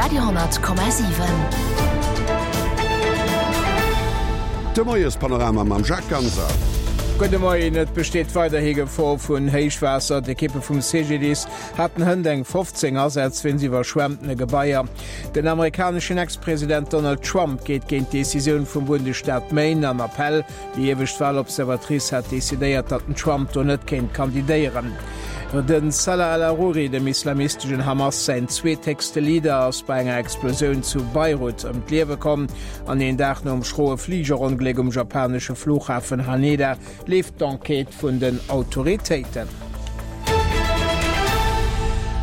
Radio,7. De Moiespanorama mam Jacques Ganser. Gudde Moien, Et besteet weiderhi Gefor vun Héichwaasser. D'Ekippe vum CGDIS haten hënt eng 15 Asätz wéinst iwwerschwemmtene Gebaier. Den amerikaneschen Ex-President Donald Trump geet géint d'Decisioun vum Bundesstaat Maine an Appell. Déi iewescht Walobservatrice hat decidéiert, datt den Trump do net kéint kandidéieren. Den Salah al-Aruri, dem islamisteschen Hamas säin zweethéchste Leader, ass bei enger Explosioun zu Beirut ëm d'Liewe komm. An een Dag nom schroe Fligerongléck um japanesche Flughafen Haneda leeft d'Enquête vun den Autoritéiten.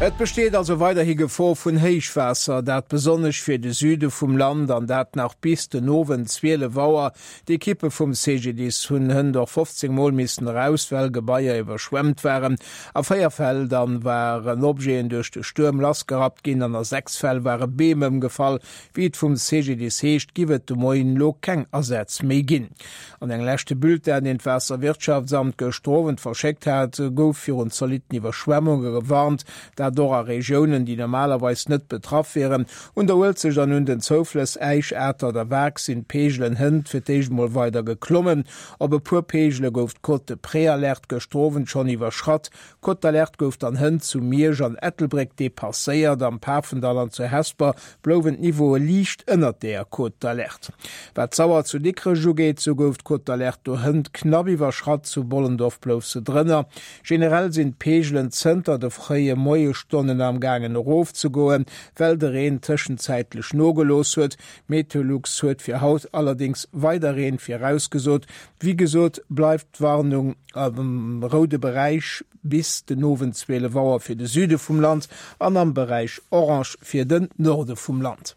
Et besteet also weiderhi Gefor vun Héichwaasser, dat besonnesch fir de Süde vum Land, an dat nach bis den Owend 12 Auer. D'Ekippe vum CGDIS hunn hënt och 15 Mol missen eraus, well Gebaier iwwerschwemmt waren. A 4 Fäll dann waren Objeten duerch de Stuerm lassgerappt ginn an a 6 Fäll ware Beem ëmgefall. Wéi et vum CGDIS heescht, giff et de Moien elo keng Asätz méi ginn. An engem leschte Bulletin, deen d'Waasserwirtschaftsamt gëschter Owend verschéckt hat, gouf virun zolitten Iwwerschwemmunge gewarnt, dat och a Regiounen, déi normalerweis net betraff wieren. Un der Uelzecht an un den Zouflëss Äisch, Atert a Waark sinn d'Peegelen hënt fir d'éischt mol weider geklommen. Op e puer Peegele gouf d'Cote de Préalerte gëschter Owend schonn iwwerschratt. D'Cote d'alerte gouf dann hënt zu Miersch an Ettelbréck depasséiert. Am Pafendall an zu Hesper blouwen d'Niveaue liicht ënnert der Cote d'alerte. Wat d'Sauer zu Dikrech ugeet, sou gouf d'Cote d'alerte do hënt knapp iwwerschratt, zu Bollendorf blouf se drënner. Generell sinn d'Peegelen zënter de fréie Moiesstonnen am gaangen erofzegoen, well de Reen tëschenzäitlech nogelooss huet. Meteolux huet fir haut allerdéngs weider Reen virausgesot. Wéi gesot bleift d'Warnung am roude Beräich bis den Owend 12 Auer fir de Süde vum Land an am Beräich orange fir den Norde vum Land.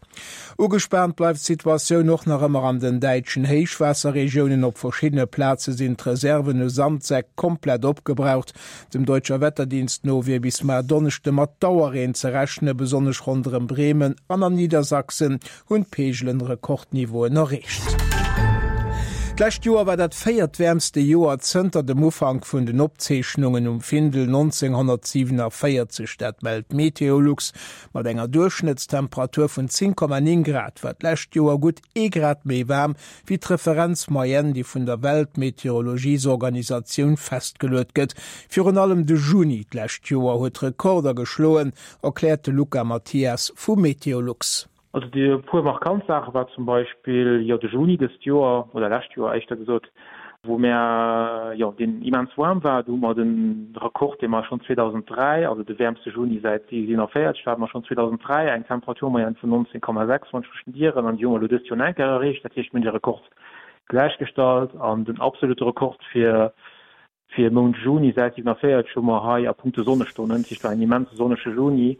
Ugespaant bleift d'Situatioun och nach ëmmer an den däitschen Héichwaasserregiounen. Op verschiddene Plaze sinn d'Reserven u Sandsäck komplett opgebraucht. Dem Deutscher Wetterdienst no wier bis mar Donneschde mat Dauerreen ze rechnen. Besonnesch ronderëm Bremen an an Niedersachsen hunn d'Peegelen Rekordniveauen erreecht. D'lescht Joer war dat véiertwäermste Joer zënter dem Ufank vun den Opzeechnungen um Findel 1947, dat mellt Meteolux. Mat enger Duerchschnëttstemperatur vun 10,9 Grad war d'lescht Joer gutt ee Grad méi waarm wéi d'Referenzmoyenne, déi vun der Weltmeteorologiesorganisatioun festgeluet gëtt. Virun allem de Juni d'lescht Joer huet Rekorder geschloen, erkläert de Luca Mathias vu Meteolux. Also déi e puer markant Saache war zum Beispill, jo, de Juni dëst Joer, oder lescht Joer éischter gesot, wou mär, jo, deen immens waarm war. Do hu mer de Rekord, dee mer schonn 2003, also de wäermste Juni säit 47, do hate mer schonn 2003 eng Temperaturmoyenne vun 19,6, wann ech mech net ieren, an déi hu mer elo dëst Joer nach eng Kéier erreecht. Dat heescht, mir hunn de Rekord gläichgestallt an den absolute Rekord fir Fir Mount Juni säit 47 hu mer hei a punkto Sonnestonnen, dat heescht war en immense sonnege Juni.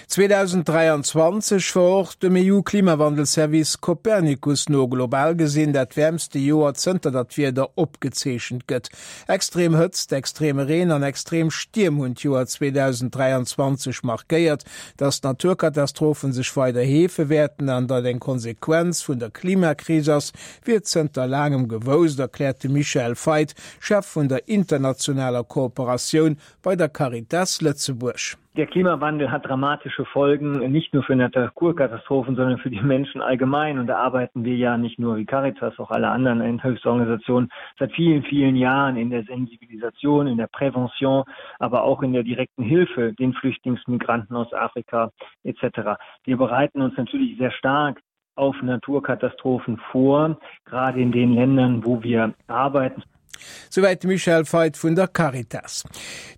2023 war och dem EU-Klimawandelservice Copernicus no global gesinn dat wäermste Joer zënter datt d'Wieder opgezeechent gëtt. Extrem Hëtzt, extreme Reen an extrem Stierm hunn d'Joer 2023 markéiert. Datt d'Naturkatastrophen sech weider heefe wäerten an datt eng Konsequenz vun der Klimakris ass, wier zënter laangem gewousst, erkläert de Michael Feit, Chef vun der internationaler Kooperatioun bei der Caritas Lëtzebuerg. Der Klimawandel hat dramatische Folgen, nicht nur für Naturkatastrophen, sondern für die Menschen allgemein. Und da arbeiten wir ja nicht nur wie Caritas, auch alle anderen Hilfsorganisationen seit vielen, vielen Jahren in der Sensibilisation, in der Prävention, aber auch in der direkten Hilfe den Flüchtlingsmigranten aus Afrika etc. Wir bereiten uns natürlich sehr stark auf Naturkatastrophen vor, gerade in den Ländern, wo wir arbeiten. Souwäit de Michel Feit vun der Caritas.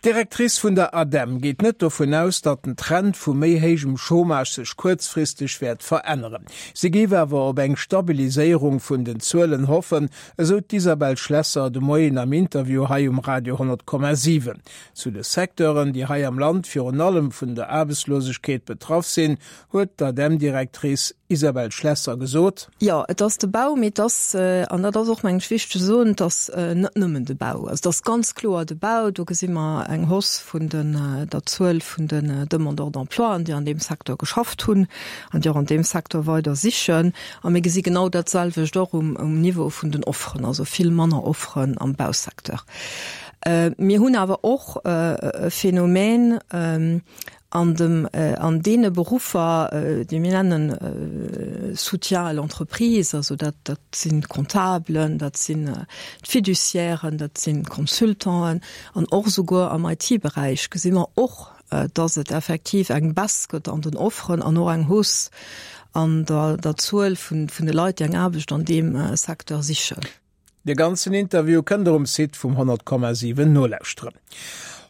D'Directrice vun der ADEM geet net dovun aus, datt den Trend vu méi héijem Chômage sech kuerzfristeg wäert veränneren. Si géif awer op eng Stabiliséierung vun den Zuelen hoffen, esou d'Isabelle Schlesser de Moien am Interview hei um Radio 10,7. Zu de Secteuren, déi hei am Land virun allem vun der Aarbechtslosegkeet betraff sinn, huet d'ADEM-Directrice Isabelle Schlesser gesot. Jo, et ass de Bau, mee et ass, an dat ass och, mengen ech, wichteg ze soen, et ass net nëmmen de Bau. Also et ass ganz kloer de Bau. Do gesi mer eng Hausse vun den, der Zuel vun den Demandeurs d'emploi, déi an deem Secteur geschafft hunn an déi och an deem Secteur weider sichen. A mir gesi genau dat selwecht och um, um Niveau vun den Offeren, also vill manner Offeren am Bausecteur. Mir hunn awer och e Phänomen. An dem, an deene Beruffer, déi mir nennen Soutien à l'entreprise, also dat, dat sinn d'Comptabelen, dat sinn d'Fiduciairen, dat sinn d'Consultanten an och esouguer am IT-Beräich gesi mer och, dass et effektiv eng Baisse gëtt an den Offeren an och eng Hausse an der, der Zuel vun, vun de Leit, déi eng Aarbecht an deem Secteur sichen. De ganzen Interview kënnt der um Site vum 100,7 nolauschteren.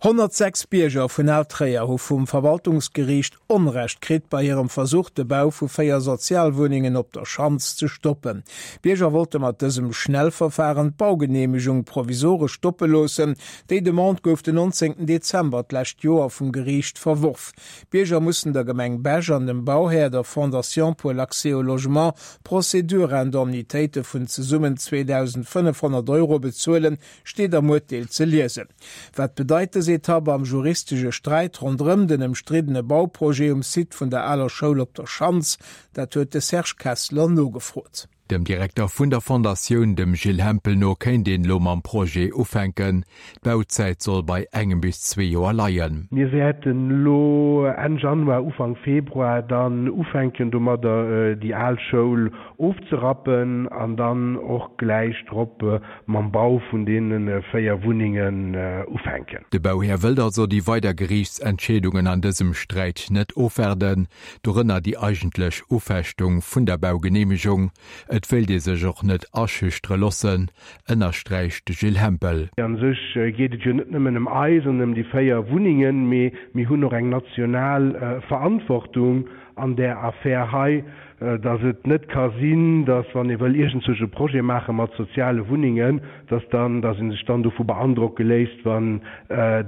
106 Bierger vun Al-Tréier hu vum Verwaltungsgeriicht Onrecht kritt bei hirem Versuch, de Bau vu 4 Sozialwunnengen op der Schanz ze stoppen. D'Bierger wollte mat dësem Schnellverfahren d'Baugeneemegung provisoresch stoppe loossen. Déi Demande gouf den 19 Dezember d'lescht Joer vum Geriicht verworf. D'Bierger mussen der Gemeng Bech an dem Bauhär, der Fondation pour l'accès au logement, Procédure-Indemnitéite vun zesummen 2.500 Euro bezuelen, steet am Urteel ze liesen. Wat bedeit dës Etapp am juristesche Sträit ronderëm den ëmstriddene Bauprojet um Site vun der aler Schoul op der Schanz? Dat huet de Serge Kessler nogefrot. Dem Direkter vun der Fondatioun, dem Gilles Hempel no, kéint een elo mam Projet ufänken. D'Bauzäit soll bei engem bis zwee Joer leien. Mir wäerten elo Enn Januar, Ufank Februar dann ufänken domadder déi al Schoul ofzerappen an dann och gläich drop mam Bau vun deene 4 Wunnengen ufänken. De Bauhär wëllt also déi weider Geriichtsentscheedungen an dësem Sträit net ofwaarden. Dorënner déi eigentlech Ufechtung vun der Baugeneemegung. Et wéilt ee sech och net aschüchtere loossen, ënnersträicht de Gilles Hempel. A sech geet et jo net nëmmen ëm eis an ëm déi 4 Wunnengen, mee mir hunn och eng national Verantwortung an där Affär hei, dass et net ka sinn, dass wann ee wëll iergendzwousch e Projet maache mat soziale Wunnengen, dass dann, dass ee sech dann dovu beandrocke léisst, wann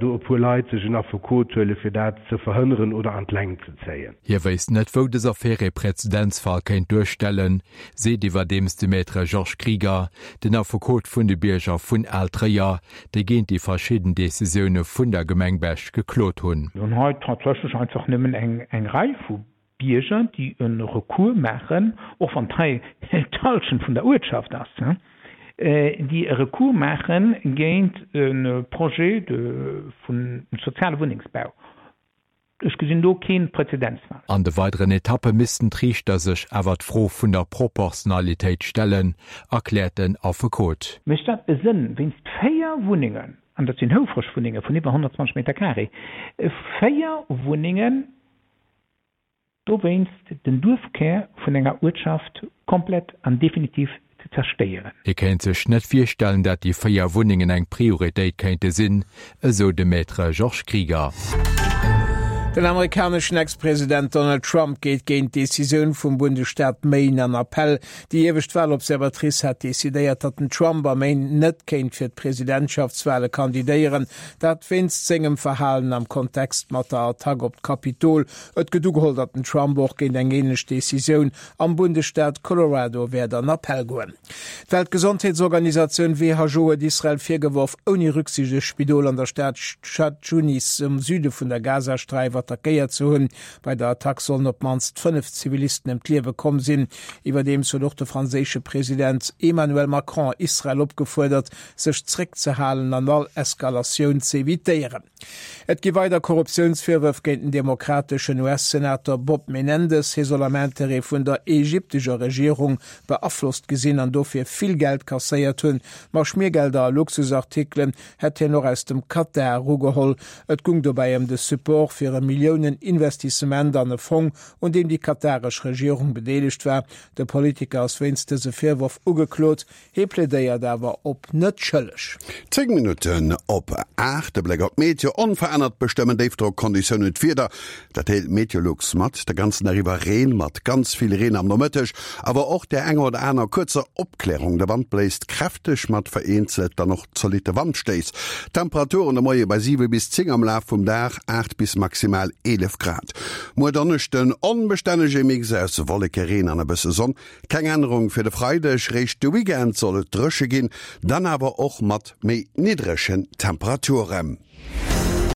do e puer Leit sech en Affekot huele fir dat ze verhënneren oder an d'Längt ze zéien. Hie wéisst net, wou dës Affär ee Präzedenzfall kéint duerstellen, seet iwwerdeems de Maître Georges Krieger, den Affekot vun de Bierger vun Al-Tréier, déi géint déi verschidden Decisioune vun der Gemeng Bech geklot hunn. Mir hunn hei tatsächlech einfach nëmmen eng Rei vu Bierger, déi e Recours maachen, och wann hei d'Hallschent vun der Uertschaft ass, déi e Recours maache géint e Projet vun soziale Wunnengsbau. Ech gesinn do kee Präzedenzfall. An de weideren Etappe missten d'Riichter sech awer d'Fro vun der Proportionalitéit stellen, erkläert den Affekot. Mécht dat e Sënn, wéinst 4 Wunnengen, an dat sinn houfreg Wunnenge vun iwwer 120 Meter carré, 4 Wunnengen dowéinst den Duerfkär vun enger Uertschaft komplett an definitiv ze zerstéieren. Hie kéint sech net virstellen, dat déi 4 Wunnengen eng Prioritéit kéinte sinn, esou de Maître Georges Krieger. Den amerikaneschen Ex-President Donald Trump geet géint d'Decisioun vum Bundesstaat Maine an Appell. Déi iewescht Walobservatrice hat decidéiert, datt den Trump a Maine net kéint fir d'Presidentschaftswale kandidéieren. Dat wéinst sengem Verhalen am Kontext mat der Attack op d'Kapitol. Et gëtt ugeholl, datt den Trump och géint eng änlech Decisioun am Bundesstaat Colorado wäert an Appell goen. D'Weltgesondheetsorganisatioun who huet Israel virgeworf, ouni Rücksicht e Spidol an der Stad Chan Junis um Süde vun der Gazasträif attackéiert ze hunn. Bei der Attack sollen op d'mannst 5 Zivilisten ëm d'Liewe komm sinn. Iwwerdeems huet och de franséische President Emmanuel Macron Israel opgefuerdert, sech zréckzehalen an all Eskalatioun z'evitéieren. Et gi weider Korruptiounsvirwërf géint den demokrateschen US-Senator Bob Menendez. Hie soll am Interêt vun der ägyptescher Regierung beaflosst gesinn an dofir vill Geld kasséiert hunn. Ma Schmiergelder a Luxusartikelen hätt hien och aus dem Katar erugeholl. Et gung dobäi ëm de Support fir e Milliounen-Investissement an e Fong, un deem déi kataresch Regierung bedeelegt war. De Politiker ass wéinst dëse Virwërf ugeklot. Hie plädéiert awer op net schëlleg. 10 Minutten op 8, de Bléck op d'Meteo, Onverännert bestëmmen Déifdrockkonditiounen d'Wieder, dat deelt Meteolux mat. De ganzen Dag iwwer Reen mat ganz vill Reen am Nomëtteg, awer och där enger oder aner kuerzer Opklärung. De Wand bléist kräfteg mat vereenzelt dann och zolitte Wandstéiss. D'Temperaturen de Moie bei 7 bis 10, am Laf vum Dag 8 bis maximal 11 Grad. Muer Donneschden onbestännege Mix aus Wolleke, Reen an e bësse Sonn. Keng Ännerung fir de Freideg, réischt de Weekend soll et dréche ginn, dann awer och mat méi niddregen Temperaturen.